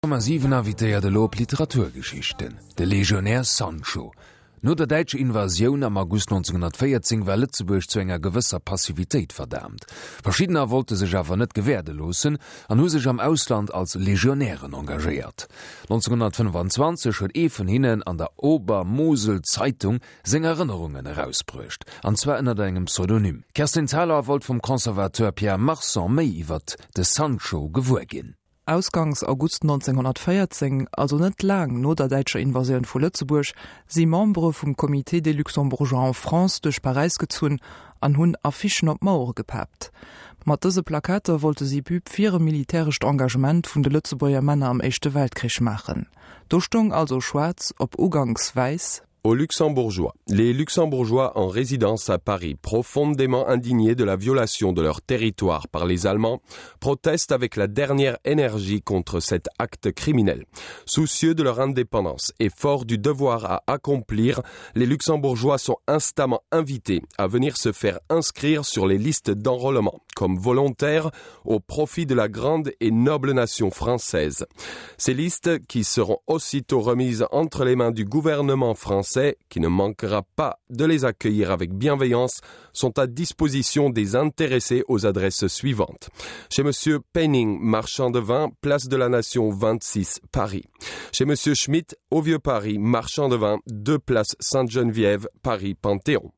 7 invitéiert elo op Literaturgeschichten, de Legionär Sancho. No der däitscher Invasioun am August 1914 war Lëtzebuerg zu enger gewësser Passivitéit verdaamt. Verschiddener wollte sech awer net gewäerde loossen an hu sech am Ausland als Legionären engagéiert. 1925 huet ee vun hinnen an der Obermosel-Zeitung seng Erënnerungen erausbruecht, an zwar ënnert engem Pseudonym. D'Kerstin Thalau wollt vum Conservateur Pierre Marson méi iwwert de Sancho gewuer ginn. Ausgangs August 1914, also net laang no der däitscher Invasioun vu Lëtzebuerg, si Membere vum Comité des Luxembourgeois en France duerch Paräis gezunn an hunn Affichen op d'Mauere gepaapt. Mat dëse Plakater wollte si Pub fir e militärescht Engagement vun de Lëtzebuerger Männer am Éischte Weltkrich maachen. Do stoung also schwaarz op uganks wäiss. Aux Luxembourgeois. Les Luxembourgeois en résidence à Paris, profondément indignés de la violation de leur territoire par les Allemands, protestent avec la dernière énergie contre cet acte criminel. Soucieux de leur indépendance et forts du devoir à accomplir, les Luxembourgeois sont instamment invités à venir se faire inscrire sur les listes d'enrôlement comme volontaires au profit de la grande et noble nation française. Ces listes, qui seront aussitôt remises entre les mains du gouvernement français, qui ne manquera pas de les accueillir avec bienveillance, sont à disposition des intéressés aux adresses suivantes. Chez monsieur Penning, marchand de vin, place de la Nation 26 Paris. Chez monsieur Schmidt, au Vieux Paris, marchand de vin, deux places Sainte-Geneviève, Paris Panthéon.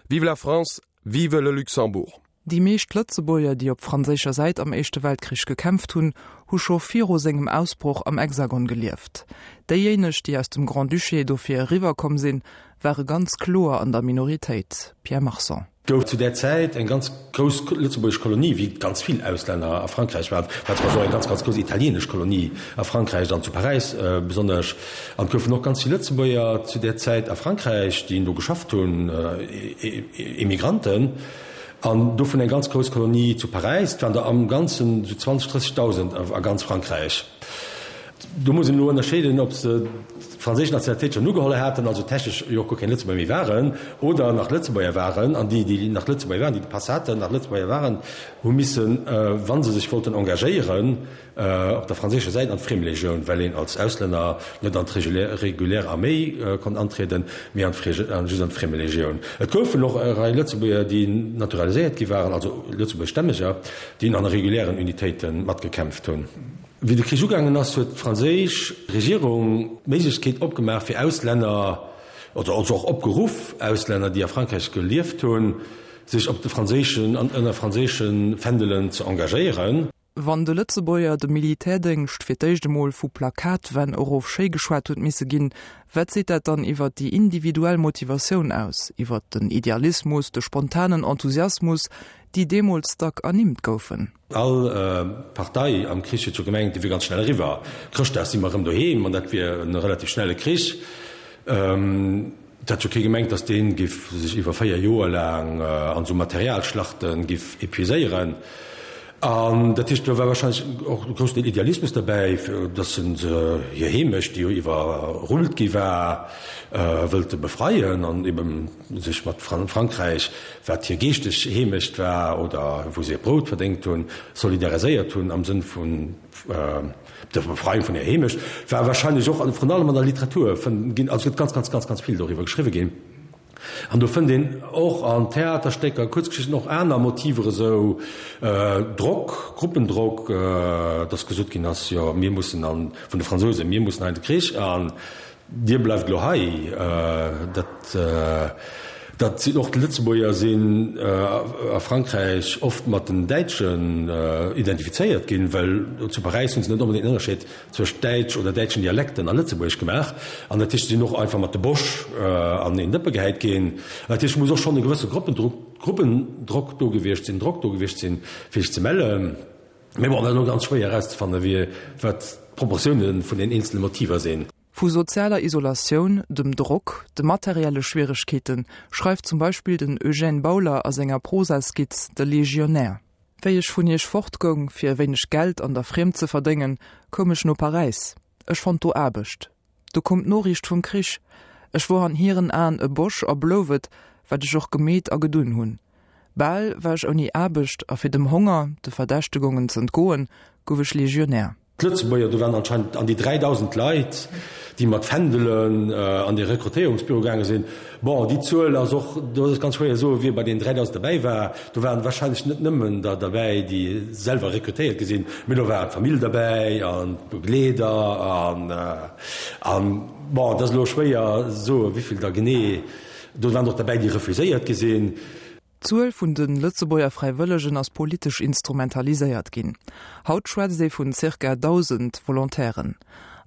Vive la France, vive le Luxembourg. Déi meescht Lëtzebuerger, déi op franséischer Säit am Éischte Weltkrich gekämpft hunn, hu scho viru sengem Ausbroch am Hexagon gelieft. Déijéineg, déi aus dem Grand-Duché dofir eriwwer komm sinn, ware ganz kloer an der Minoritéit. Pierre Marson. Gouf zu där Zäit eng ganz grouss lëtzebuergesch Kolonie, wéi ganz vill Auslänner a Frankräich waren, war zum Beispill och eng ganz, ganz grouss italienesch Kolonie a Frankräich an zu Paräis besonnesch. An et goufen och ganz vill Lëtzebuerger zu där Zäit a Frankräich, déi do geschafft hunn, Emigranten. An dovun eng ganz grouss Kolonie zu Paräis. Et waren der am Ganzen esou 20, 30.000 a ganz Frankräich. Do muss een elo ënnerscheeden, ob se d'franséisch Nationalitéit schonn ugeholl haten, also technesch jo och guer keng Lëtzebuerger méi waren, oder nach Lëtzebuerger waren. An déi, déi nach Lëtzebuerger waren, déi de Pass haten, nach Lëtzebuerger waren, hu missen, wa se sech wollten engagéieren, Op der franséischer Säit an d'Friemlegioun, well een als Auslänner net an d'regulär Arméi konnt antrieden, mee an just an d'Friemlegioun. Et goufen och e Rei Lëtzebuerger, déi naturaliséiert gi waren, also Lëtzebuergeschstämmeger, déi an regulären Unitéite matgekämpft hunn. Wéi de Krich ugaangen ass, huet d'franséisch Regierung d'Méiglechkeet opgemaach fir Auslänner, also och opgeruff, Auslänner, déi a Frankräich gelieft hunn, sech op de franséischen an ënner franséische Fändelen ze engagéieren. Wann de Lëtzebuerger de Militärdéngscht fir d'éischt emol vu Plakatwänn erof schéi geschwat huet misse ginn, wat seet dat dann iwwer déi individuell Motivatioun aus, iwwer den Idealismus, de spontanen Enthusiasmus, déi deemools dack ernimmt goufen? All Partei am Krich huet jo gemengt, dee wier ganz schnell eriwwer. Chrëschtdag si mer erëm doheem an dat wier e relativ schnelle Krich. Et hat jo kee gemengt, datt dee giff sech iwwer 4 Joer laang an esou Materialschlachte giff epuiséieren. An dat heescht, do war wahrscheinlech och e groussen Deel Idealismus derbäi, fir datt se hir Heemecht, déi jo iwwerrullt gi war, wëllte befreien an ebe sech mat Frankräich, wat hir geeschteg Heemecht war oder wou se hiert Brout verdéngt hunn, solidariséiert hunn am Sënn vun Der Befreiung vun der Heemecht war wahrscheinlech och, vrun allem an der Literatur fënnt ginn, also et gëtt ganz, ganz, ganz, ganz vill doriwwer geschriwwe ginn. An do fënnt een och an Theaterstécker, Kuerzgeschichten och aner Motiver esou, Drock, Gruppendrock, dass gesot ginn ass, jo mir mussen an, vun de Fransousen, mir mussen hei an de Krich an Dir bleift elo hei. Dat, dat sinn och d'Lëtzebuerger sinn a Frankräich oft mat den Däitschen identifizéiert ginn, well zu Paräis hu se net onbedéngt en Ënnerscheed zwëscht Däitsch oder däitschen Dialekten a Lëtzebuergesch gemaach. An dat heescht, se sinn och einfach mat de Bosch an een Dëppe gehäit ginn. Dat heescht, et muss och schonn e gewësse Gruppendruck, Gruppendrock do gewiescht sinn, Drock do gewiescht sinn, fir sech ze mellen. Mee bon, dat ass elo ganz schwéier erauszefannen, wie, wat d'Proportioune vun den eenzele Motiver sinn. Vu sozialer Isolatioun, dem Drock, de materielle Schwieregkeete schreift zum Beispill den Eugène Bauler a senger Prosaskizz De Legionär. Wéi ech vun Iech fortgoung, fir e wéineg Geld an der Friemd ze verdéngen, koum ech no Paräis. Ech fonnt do Aarbecht. Du koum d'Noriicht vum Krich. Ech wor an hiren Aen e Bosch a blouf et, wat ech och gemeet a gedun hunn. Bal war ech ouni Aarbecht a fir dem Honger, de Verdächtegongen z'entgoen, gouf ech Legionär. D'Lëtzebuerger, do waren anscheinend an déi 3.000 Leit, déi mat Fändelen an dee Rekrutéierungsbüro gaange sinn. Bon, déi Zuel ass och, do ass et ganz schwéier soen, wie bei deenen 3.000 derbäi war. Do waren wahrscheinlech net nëmmen der derbäi, déi selwer rekrutéiert gi sinn, mee do war d'Famill derbäi an d'Begleeder an, an bon, et ass elo schwéier soen, wéivill der genee. Do waren och derbäi, déi refuséiert gi sinn. D'Zuel vun de Lëtzebuerger Fräiwëllegen ass politesch instrumentaliséiert ginn. Haut schwätzt ee vun zirka 1.000 Volontairen.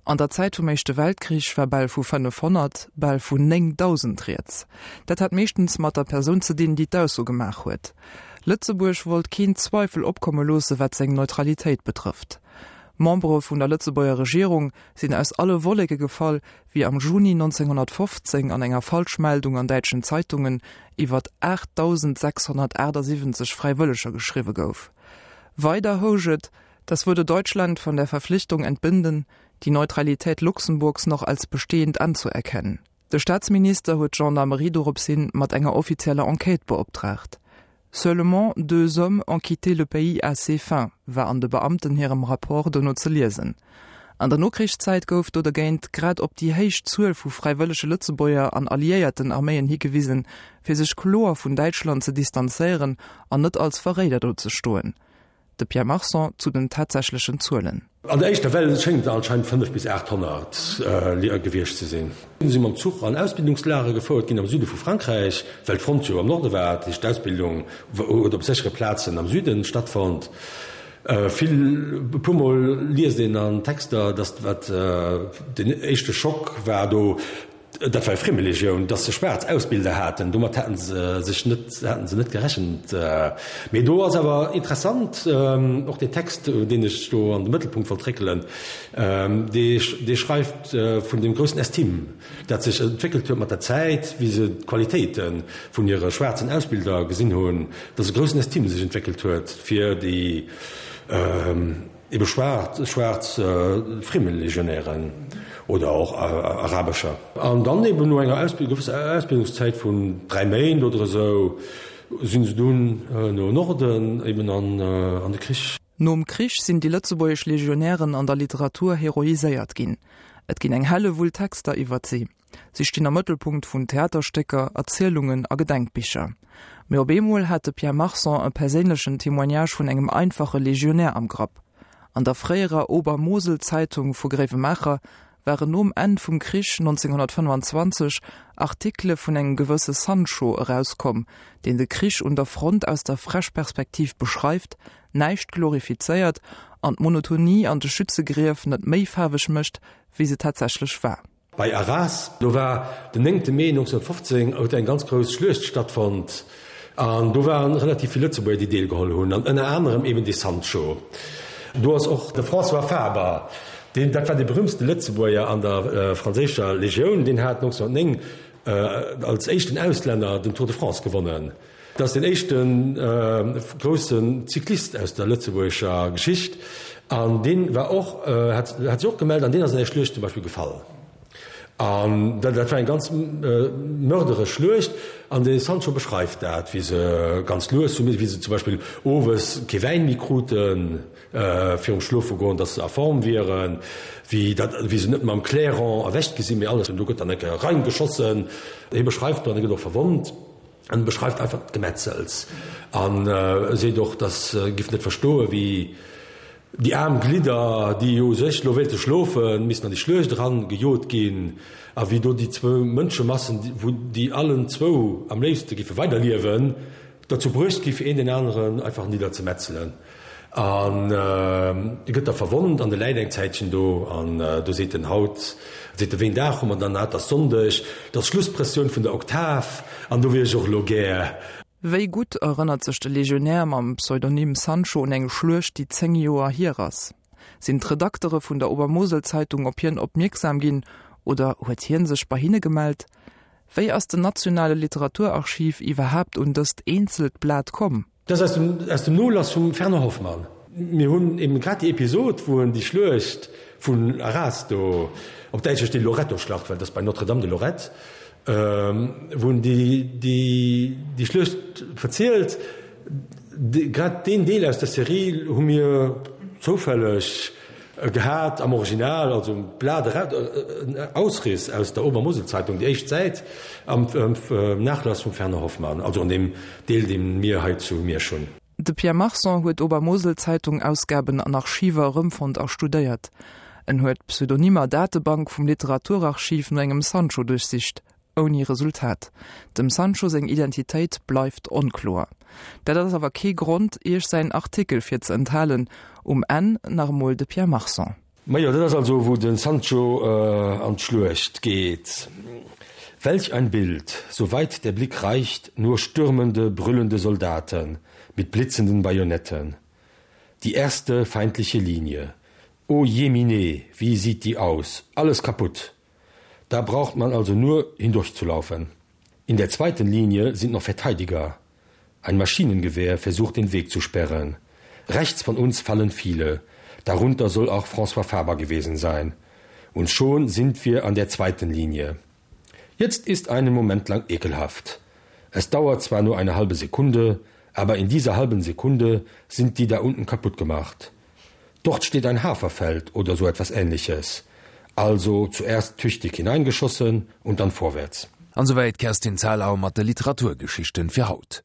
An der Zäit vum Éischte Weltkrich war bal vu 500, bal vun 9.000 rieds. Dat hat meeschtens mat der Persoun ze dinn, déi d'Ausso gemaach huet. Lëtzebuerg wollt keen Zweifel opkomme loosse wat seng Neutralitéit betrëfft. Membere vun der Lëtzebuerger Regierung sinn aus alle Wolleke gefall, wéi am Juni 1915 an enger Falschmeldung an däitschen Zeitungen iwwert 8.678 Fräiwëlleger geschriwwe gouf. Weider housch et, Das würde Deutschland von der Verpflichtung entbinden, die Neutralität Luxemburgs noch als bestehend anzuerkennen. De Staatsminister huet d'Gendarmerie dorops hin mat enger offizieller Enquête beoptraagt. Seulement deux hommes ont quitté le pays à ces fins, war an de Beamten hirem Rapport dono ze liesen. An der Nokrichszäit gouf do dergéint grad op déi héich Zuel vu fräiwëllege Lëtzebuerger an alliéierten Arméien higewisen, fir sech kloer vun Däitschland ze distanzéieren an net als Verréider do ze stoen. De Pierre Marson zu den tatsächlechen Zuelen. An der éischter Well schéngt et anscheinend 5 bis 800 gewiescht ze sinn. Si si mam Zuch an Ausbildungslager gefouert ginn am Süde vu Frankräich, well d'Front jo am Norde war. Dat heescht, d'Ausbildung huet op séchere Plazen am Süde stattfonnt. Vill, e puer Mol liest een an Texter, datt wat den éischte Schock war do, Dat war Friemelegioun, datt se schwaarz Ausbilder haten, domat haten se sech net, haten se net gerechent. Mee do ass awer interessant och deen Text, deen ech do an de Mëttelpunkt wollt réckelen, dee dee schreift vun deem groussen Estime, dat sech entwéckelt huet mat der Zäit, wéi se d'Qualitéite vun hire schwaarzen Ausbilder gesinn hunn, datt e groussen Estime sech entwéckelt huet fir déi, Ebe schwaarz, schwaarz Friemelegionären oder och arabescher. An dann eben no enger gewësser Ausbildungszäit vun 3 Méint oder esou sinn se dunn no Norden eben an an de Krich. Nom Krich sinn déi lëtzebuergesch Legionären an der Literatur heroiséiert ginn. Et ginn eng Hellewull Texter iwwert si. Si stinn am Mëttelpunkt vun Theaterstécker, Erzielungen a Gedenkbicher. Mee op eemol hat de Pierre Marson e perséinlechen Témoignage vun engem einfache Legionär am Grapp. An der fréierer Obermosel-Zeitung vu Gréiwemaacher waren nom Enn vum Krich 1925 Artikele vun engem gewësse Sancho erauskomm, deen de Krich un der Front aus der Fräschperspektiv beschreift, näischt glorifizéiert an d'Monotonie an de Schützegrief net méi faarweg mécht, wéi se tatsächlech war. Bei Arras, do war den néngte Mee 1915, huet eng ganz grouss Schluecht stattfonnt an do waren relativ vill Lëtzebuerger, déi deelgeholl hunn an ënner anerem eben dee Sancho. Do ass och de François Faber, deen, dat war dee berühmtste Lëtzebuerger an der franséischer Legioun, deen hat 1909 als éischten Auslänner den Tour de France gewonnen. Dat ass den éischte groussen Cyclist aus der lëtzebuergescher Geschicht an dee war och, hat sech och gemellt an deen ass an där Schluecht zum Beispill gefall. An dat war eng ganz mörderesch Schluecht an de Sancho beschreift dat, wéi se ganz lues hu missen, wéi se zum Beispill owes kee Wäin méi kruten virum Schlofegoen, datt se a Form wieren, wéi dat, wéi se net mam Clairon erwächt gi sinn, mee alles, do gëtt dann eng Kéier reingeschossen. Hie beschreift do an e gëtt och verwonnt. En beschreift einfach d'Gemetzels an seet och, dass e giff net verstoen, wéi déi aarm Glidder, déi jo u sech lo wéilte schlofen, missten an déi Schluecht eran gejot ginn a wéi do déi zwou Mënschemassen, wou déi allen zwou am léifste giffe weiderliewen, derzou bruecht gi fir een deen aneren einfach nidderzemetzelen. An e gëtt da verwonnt an e läit eng Zäitchen do. An do seet en, Haut, seet e, wéi en Dag hu mer dann? Ah, 't ass Sonndeg, 't ass Schlusspressioun vun der Oktav an do wier ech och elo gär. Wéi gutt erënnert sech de Legionär mam Pseudonym Sancho un eng Schluecht, déi 10 Joer hier ass? Sinn d'Redaktere vun der Obermoselzeitung op hien opmierksam ginn oder huet hien sech bei hinne gemellt? Wéi ass den nationale Literaturarchiv iwwerhaapt un dëst eenzelt Blat komm? Dat ass aus dem Nolass vum Fernand Hoffmann. Mir hunn eben grad déi Episod, wou en déi Schluecht vun Arras do, op Däitsch heescht déi Loretto-Schlacht, well dat ass bei Notre-Dame de Lorette, wou en déi Schluecht verzielt. Grad deen Deel aus der Serie hu mir zoufälleg. Gehat am Original, also e Blat eraus, en Ausriss aus der Obermoselzeitung, déi éischt Säit am Nachlass vum Fernand Hoffmann, also an deem Deel, dee mir hei zu Miersch hunn. De Pierre Marson huet Obermoselzeitung-Ausgaben an Archiver erëmfonnt a studéiert. En huet d'Pseudonymer-Datebank vum Literaturarchiv no engem Sancho duerchsicht, Ouni Resultat. Dem Sancho seng Identitéit bleift onkloer. Dat ass awer kee Grond, Iech säin Artikel fir ze enthalen. Um Enn nach emol de Pierre Marson. Majo, dat ass also wou de Sancho an d'Schluecht geet. Welch ein Bild, so weit der Blick reicht, nur stürmende, brüllende Soldaten mit blitzenden Bajonetten. Die erste feindliche Linie. O jemine, wie sieht die aus, alles kaputt! Da braucht man also nur hindurchzulaufen. In der zweiten Linie sind noch Verteidiger. Ein Maschinengewehr versucht den Weg zu sperren. Rechts von uns fallen viele. Darunter soll auch François Faber gewesen sein. Und schon sind wir an der zweiten Linie. Jetzt ist einen Moment lang ekelhaft. Es dauert zwar nur eine halbe Sekunde, aber in dieser halben Sekunde sind die da unten kaputt gemacht. Dort steht ein Haferfeld oder so etwas ähnliches. Also zuerst tüchtig hineingeschossen und dann vorwärts. An souwäit d'Kerstin Thalau mat de Literaturgeschichten fir haut.